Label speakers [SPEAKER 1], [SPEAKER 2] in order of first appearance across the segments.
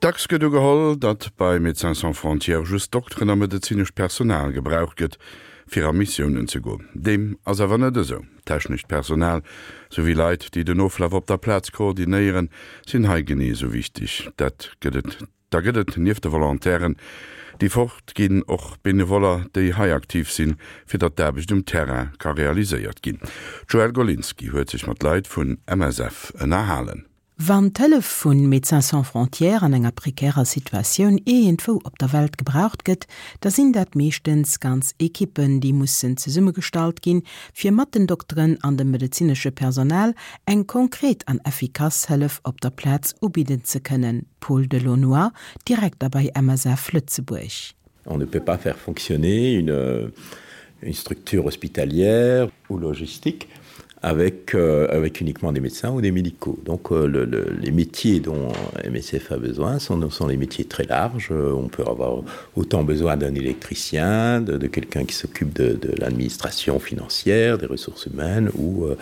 [SPEAKER 1] Dacks gëtt ugeholl, datt bei Médecins Sans Frontières just Dokteren a medezinescht Personal gebraucht gëtt, fir a Missiounen ze goen. Deem ass awer net esou. Technescht Personal, souwéi Leit, déi den Oflaf op der Plaz koordinéieren, sinn hei genee esou wichteg. Dat gëtt et, da gëtt et nieft de Volontairen, déi fort ginn, och Benevoller, déi hei aktiv sinn, fir datt d'Aarbecht um Terrain ka realiséiert ginn. D'Joëlle Golinski huet sech mat Leit vun MSF ënnerhalen.
[SPEAKER 2] Wann d'Hëllef vu Médecins Sans Frontières an enger prekärer Situatioun iergendwou op der Welt gebraucht gëtt, da sinn dat meeschtens ganz Ekippen, déi mussen zesummegestallt ginn, fir mat den Dokteren an dem medezinesche Personal eng konkret an effikass Hëllef op der Plaz ubidden ze kënnen, Paul Delaunoy, Direkter bei MSF Lëtzebuerg.
[SPEAKER 3] On ne peut pas faire fonctionner une, une structure hospitalière ou logistique avec, euh, avec uniquement des médecins ou des médicaux. Donc euh, le, le, les métiers dont MSF a besoin sont, sont les métiers très larges. On peut avoir autant besoin d'un électricien, de, de quelqu'un qui s'occupe de, de l'administration financière, des ressources humaines ou euh,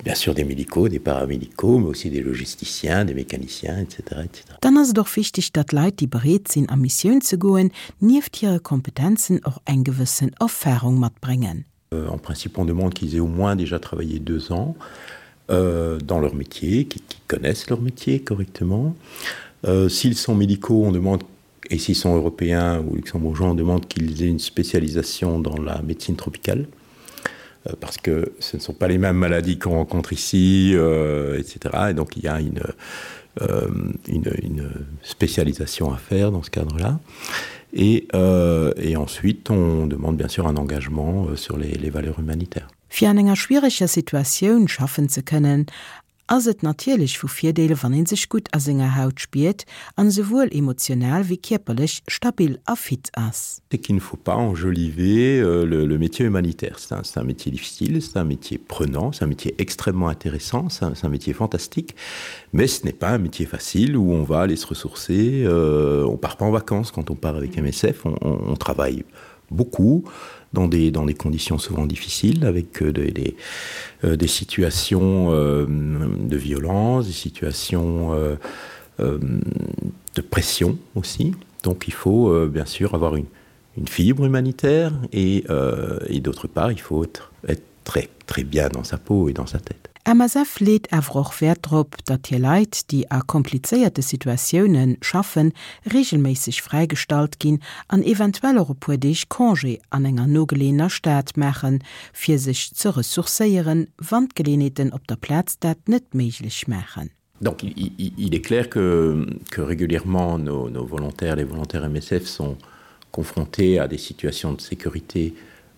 [SPEAKER 3] bien sûr des médicaux, des paramédicaux, mais aussi des logisticiens, des mécaniciens, etc. etc.
[SPEAKER 2] Dann ass et och wichteg, datt Leit, déi bereet sinn a Missioun ze goen, nieft hire Kompetenzen och eng gewëssen Erfarung matbréngen.
[SPEAKER 3] Euh, en principe, on demande qu'ils aient au moins déjà travaillé deux ans euh, dans leur métier, qu'ils qu connaissent leur métier correctement. Euh, S'ils sont médicaux, on demande et s'ils sont européens ou luxembourgeois, on demande qu'ils aient une spécialisation dans la médecine tropicale euh, parce que ce ne sont pas les mêmes maladies qu'on rencontre ici, euh, etc. Et donc il y a une, euh, une, une spécialisation à faire dans ce cadre-là. Et, euh, et ensuite, on demande bien sûr un engagement euh, sur les, les valeurs humanitaires.
[SPEAKER 2] Fir an enger schwiereger Situatioun schaffen ze kënnen, ass et natierlech vu Virdeel, wann ee sech gutt a senger Haut spiert an esouwuel emotional wéi kierperlech stabil a fit ass.
[SPEAKER 3] C'est qu'il ne faut pas enjoliver euh, le, le métier humanitaire. C'est un, un métier difficile, c'est un métier prenant, c'est un métier extrêmement intéressant, c'est un, un métier fantastique, mais ce n'est pas un métier facile où on va aller se ressourcer. Euh, on part pas en vacances quand on part avec MSF, on, on, on travaille beaucoup dans des, dans des conditions souvent difficiles, avec euh, des, des, euh, des situations euh, de violence, des situations euh, euh, de pression aussi. Donc il faut euh, bien sûr avoir une, une fibre humanitaire et, euh, et d'autre part il faut être, être très, très bien dans sa peau et dans sa tête.
[SPEAKER 2] MSF leet awer och Wäert drop, datt hir Leit, déi a komplizéierte Situatioune schaffen, reegelméisseg fräigestallt ginn an eventuell och e puer Deeg Congé an enger nogeleeëner Stad maachen, fir sech ze ressourcéieren, wann d'Geleeënheeten op der Plaz dat net méiglech maachen.
[SPEAKER 3] Donc il, il, il est clair que, que régulièrement nos, nos volontaires, les volontaires MSF sont confrontés à des situations de sécurité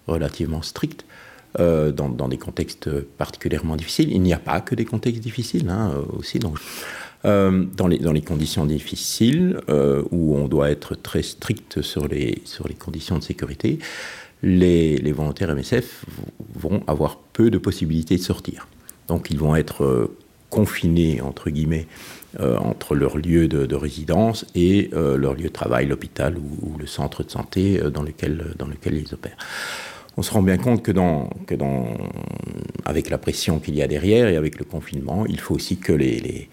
[SPEAKER 3] relativement strictes euh, dans, dans des contextes particulièrement difficiles. Il n'y a pas que des contextes difficiles hein, aussi. Donc, euh, dans, les, dans les conditions difficiles euh, où on doit être très strict sur les, sur les conditions de sécurité, les, les volontaires MSF vont avoir peu de possibilités de sortir. Donc ils vont être euh, confinés entre guillemets euh, entre leur lieu de, de résidence et euh, leur lieu de travail, l'hôpital ou, ou le centre de santé euh, dans, lequel, dans lequel ils opèrent. On se rend bien compte que, dans, que dans, avec la pression qu'il y a derrière et avec le confinement, il faut aussi que les, les,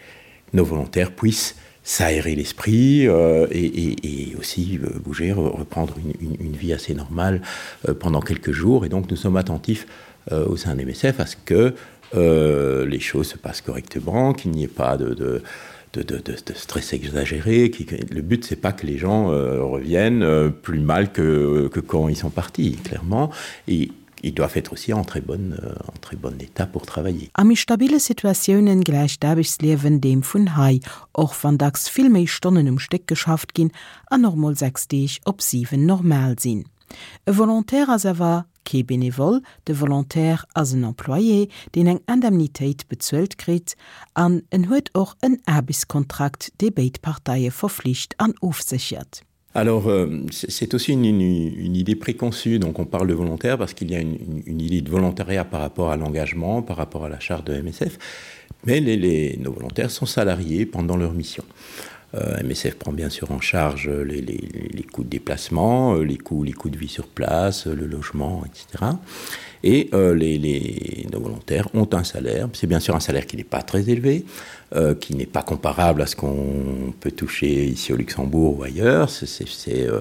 [SPEAKER 3] nos volontaires puissent s'aérer l'esprit euh, et, et, et aussi euh, bouger, reprendre une, une, une vie assez normale euh, pendant quelques jours. Et donc nous sommes attentifs euh, au sein des MSF à ce que euh, les choses se passent correctement, qu'il n'y ait pas de, de, de, de, de, de stress exagéré. Qui, le but, c'est pas que les gens euh, reviennent euh, plus mal que, que quand ils sont partis, clairement. Et ils doivent être aussi en très bonne, euh, en très bon état pour travailler.
[SPEAKER 2] A méi stabile Situatiounen gläicht d'Aarbechtsliewen deem vun hei, och wann dacks vill méi Stonnen um Stéck geschafft ginn an och mol 6 Deeg op 7 normal sinn. E Volontaire ass awer kee Benevole, de Volontaire ass en Employé, deen eng Indemnitéit bezuelt kritt an en huet och en Aarbechtskontrakt, dee béid Parteie verflicht an ofséchert.
[SPEAKER 3] Alors euh, c'est aussi une, une, une idée préconçue, donc on parle de volontaire parce qu'il y a une, une, une idée de volontariat par rapport à l'engagement, par rapport à la charte de MSF, mais les, les, nos volontaires sont salariés pendant leur mission. Euh, MSF prend bien sûr en charge les, les, les coûts de déplacement, euh, les coûts, les coûts de vie sur place, le logement, etc. Et euh, les, les, nos volontaires ont un salaire. C'est bien sûr un salaire qui n'est pas très élevé, euh, qui n'est pas comparable à ce qu'on peut toucher ici au Luxembourg ou ailleurs. C'est euh,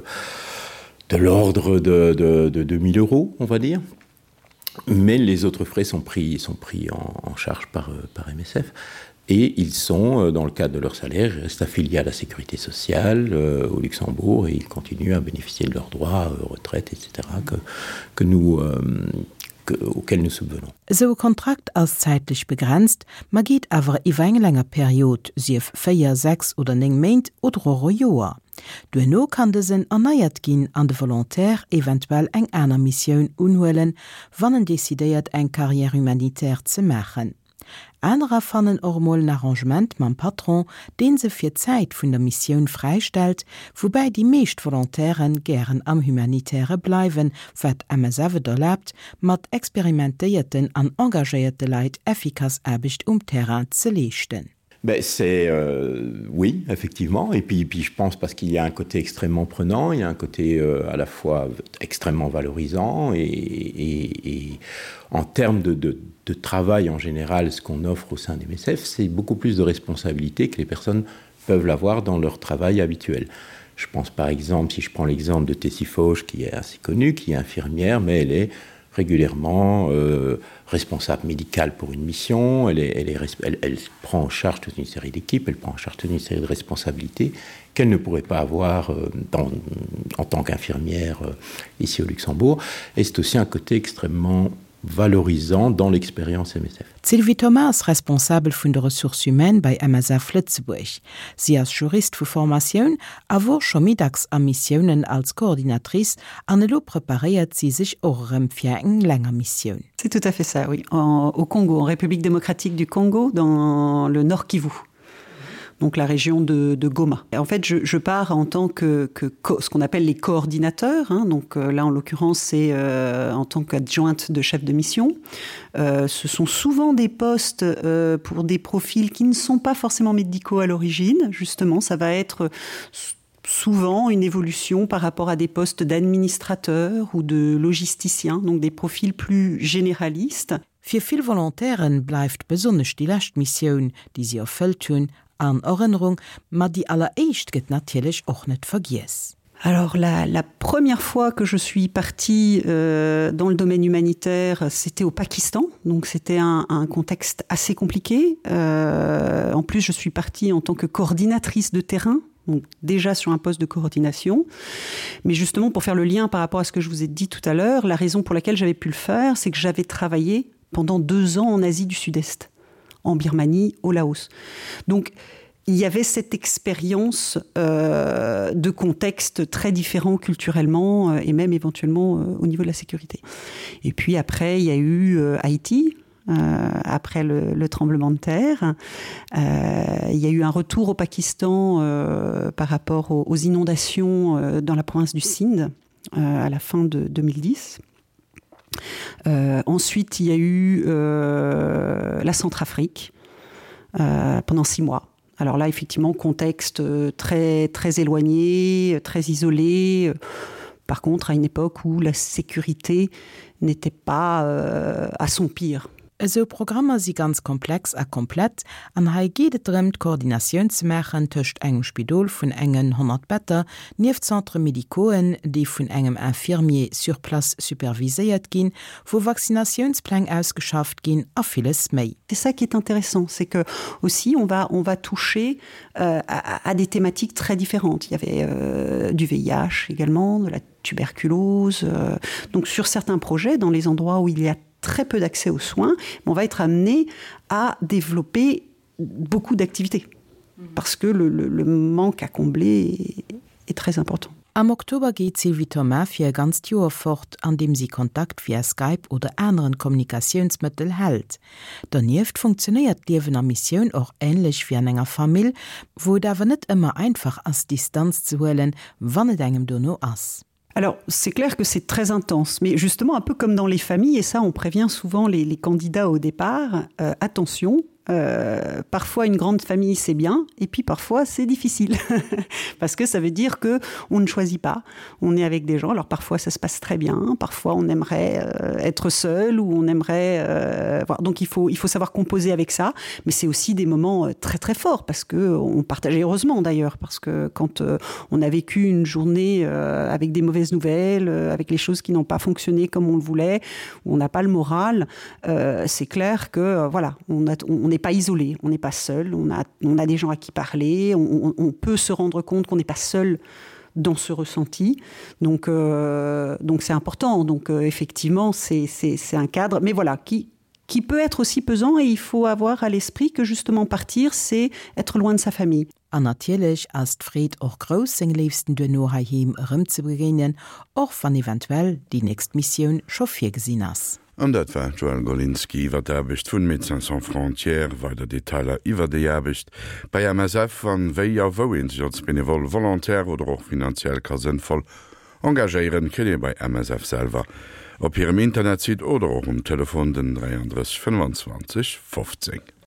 [SPEAKER 3] de l'ordre de, de, de 2000 euros, on va dire. Mais les autres frais sont pris, sont pris en, en charge par, euh, par MSF et ils sont, euh, dans le cadre de leur salaire, restent affiliés à la sécurité sociale euh, au Luxembourg et ils continuent à bénéficier de leurs droits, euh, retraite, etc., que, que nous, euh, que, auxquels nous subvenons.
[SPEAKER 2] Esou e Kontrakt ass zäitlech begrenzt, ma geet awer iwwer eng länger Period, sief 4, 6 oder 9 Méint oder och e Joer. Duerno kann dësen erneiert ginn an de Volontaire eventuell eng aner Missioun unhuelen, wann en decidéiert eng Carrière humanitaire ze maachen. Anerer fannen och emol en Arrangement mam Patron, deen se fir d'Zäit vun der Missioun fräistellt, woubäi déi meescht Volontaire gären am Humanitäre bleiwen, wat MSF et erlaabt, mat experimentéierten an engagéierte Leit effikass Aarbecht um Terrain ze leeschten.
[SPEAKER 3] Ben c'est euh, oui effectivement et puis puis je pense parce qu'il y a un côté extrêmement prenant il y a un côté euh, à la fois extrêmement valorisant et, et, et en termes de, de, de travail en général ce qu'on offre au sein des MSF c'est beaucoup plus de responsabilités que les personnes peuvent l'avoir dans leur travail habituel. Je pense par exemple si je prends l'exemple de Tessie Fauche qui est assez connue qui est infirmière mais elle est régulièrement euh, responsable médicale pour une mission, elle, est, elle, est, elle, elle prend en charge toute une série d'équipes, elle prend en charge toute une série de responsabilités qu'elle ne pourrait pas avoir euh, dans, en tant qu'infirmière euh, ici au Luxembourg. Et c'est aussi un côté extrêmement valorisant dans l'expérience MSF.
[SPEAKER 2] D'Sylvie Thomas ass Responsabel vun de Ressources humaines bei MSF Lëtzebuerg. Si ass Jurist vu Formatioun a wor scho méi dacks a Missiounen als Coordinatrice an elo preparéiert si sech och erëm fir eng länger Missioun.
[SPEAKER 4] C'est tout à fait ça, oui. En, au Congo, en République démocratique du Congo, dans le Nord Kivu donc la région de, de Goma. Et en fait, je, je pars en tant que, que ce qu'on appelle les coordinateurs. Hein, donc euh, là, en l'occurrence, c'est euh, en tant qu'adjointe de chef de mission. Euh, ce sont souvent des postes euh, pour des profils qui ne sont pas forcément médicaux à l'origine. Justement, ça va être souvent une évolution par rapport à des postes d'administrateurs ou de logisticiens, donc des profils plus généralistes.
[SPEAKER 2] Fir vill Volontairen bleift besonnesch déi lescht Missioun, déi si erfëllt hunn, an Erënnerung, ma déi alleréischt gëtt natierlech och net vergiess.
[SPEAKER 4] Alors la, la première fois que je suis partie euh, dans le domaine humanitaire, c'était au Pakistan, donc c'était un, un contexte assez compliqué. Euh, en plus, je suis partie en tant que coordinatrice de terrain, donc déjà sur un poste de coordination. Mais justement, pour faire le lien par rapport à ce que je vous ai dit tout à l'heure, la raison pour laquelle j'avais pu le faire, c'est que j'avais travaillé pendant deux ans en Asie du Sud-Est, en Birmanie, au Laos. Donc il y avait cette expérience euh, de contexte très différent culturellement euh, et même éventuellement euh, au niveau de la sécurité. Et puis après, il y a eu euh, Haïti, euh, après le, le tremblement de terre. Euh, il y a eu un retour au Pakistan euh, par rapport aux, aux inondations euh, dans la province du Sindh euh, à la fin de 2010. Euh, ensuite, il y a eu euh, la Centrafrique euh, pendant six mois. Alors là, effectivement, contexte euh, très, très éloigné, très isolé. Par contre, à une époque où la sécurité n'était pas euh, à son pire.
[SPEAKER 2] Esou Programmer si ganz komplex a komplett an hei geet et drëm, d'Koordinatioun ze maachen tëscht engem Spidol vun engen 100 Better, nieft Centres médicauxen, déi vun engem Infirmier sur place superviséiert ginn, wou Vaccinatiounspläng ausgeschafft ginn a villes méi.
[SPEAKER 4] C'est ça qui est intéressant, c'est que aussi on va, on va toucher euh, à, à des thématiques très différentes. Il y avait euh, du VIH également, de la tuberculose. Euh, donc sur certains projets, dans les endroits où il y a très peu d'accès aux soins, on va être amené à développer beaucoup d'activités parce que le, le, le manque à combler est, est très important.
[SPEAKER 2] Am Oktober geet d'Sylvie Thomas fir e ganzt Joer fort, an deem si Kontakt via Skype oder aneren Kommunikatiounsmëttel hält. Donieft funktionéiert d'Liewen a Missioun och änlech wéi an enger Famill, wou et awer net ëmmer einfach ass Distanz ze huelen, wann et engem dono ass.
[SPEAKER 4] Alors c'est clair que c'est très intense, mais justement un peu comme dans les familles et ça on prévient souvent les, les candidats au départ, euh, attention. Euh, parfois une grande famille c'est bien et puis parfois c'est difficile parce que ça veut dire que on ne choisit pas on est avec des gens alors parfois ça se passe très bien parfois on aimerait euh, être seul ou on aimerait euh, voilà. donc il faut il faut savoir composer avec ça mais c'est aussi des moments euh, très très forts parce que on partageait heureusement d'ailleurs parce que quand euh, on a vécu une journée euh, avec des mauvaises nouvelles euh, avec les choses qui n'ont pas fonctionné comme on le voulait on n'a pas le moral euh, c'est clair que euh, voilà on a on n'est pas isolé, on n'est pas seul, on a, on a des gens à qui parler, on, on, on peut se rendre compte qu'on n'est pas seul dans ce ressenti. Donc euh, donc c'est important. Donc euh, effectivement, c'est un cadre, mais voilà qui qui peut être aussi pesant et il faut avoir à l'esprit que justement partir, c'est être loin de sa famille.
[SPEAKER 2] An natierlech ass d'Freed och grouss, seng Léifsten duerno heiheem erëmzebegéinen, och wann eventuell déi nächst Missioun scho virgesinn ass.
[SPEAKER 1] An dat war d'Joëlle Golinski iwwer d'Aarbecht vun Médecins Sans Frontières. Weider Detailer iwwer déi Aarbecht bei MSF an wéi a wou ee sech als Benevole, Volontaire oder och finanziell ka sënnvoll engagéieren, kritt ee bei MSF selwer op hirem Internetsite oder och um Telefon den 33 25 15.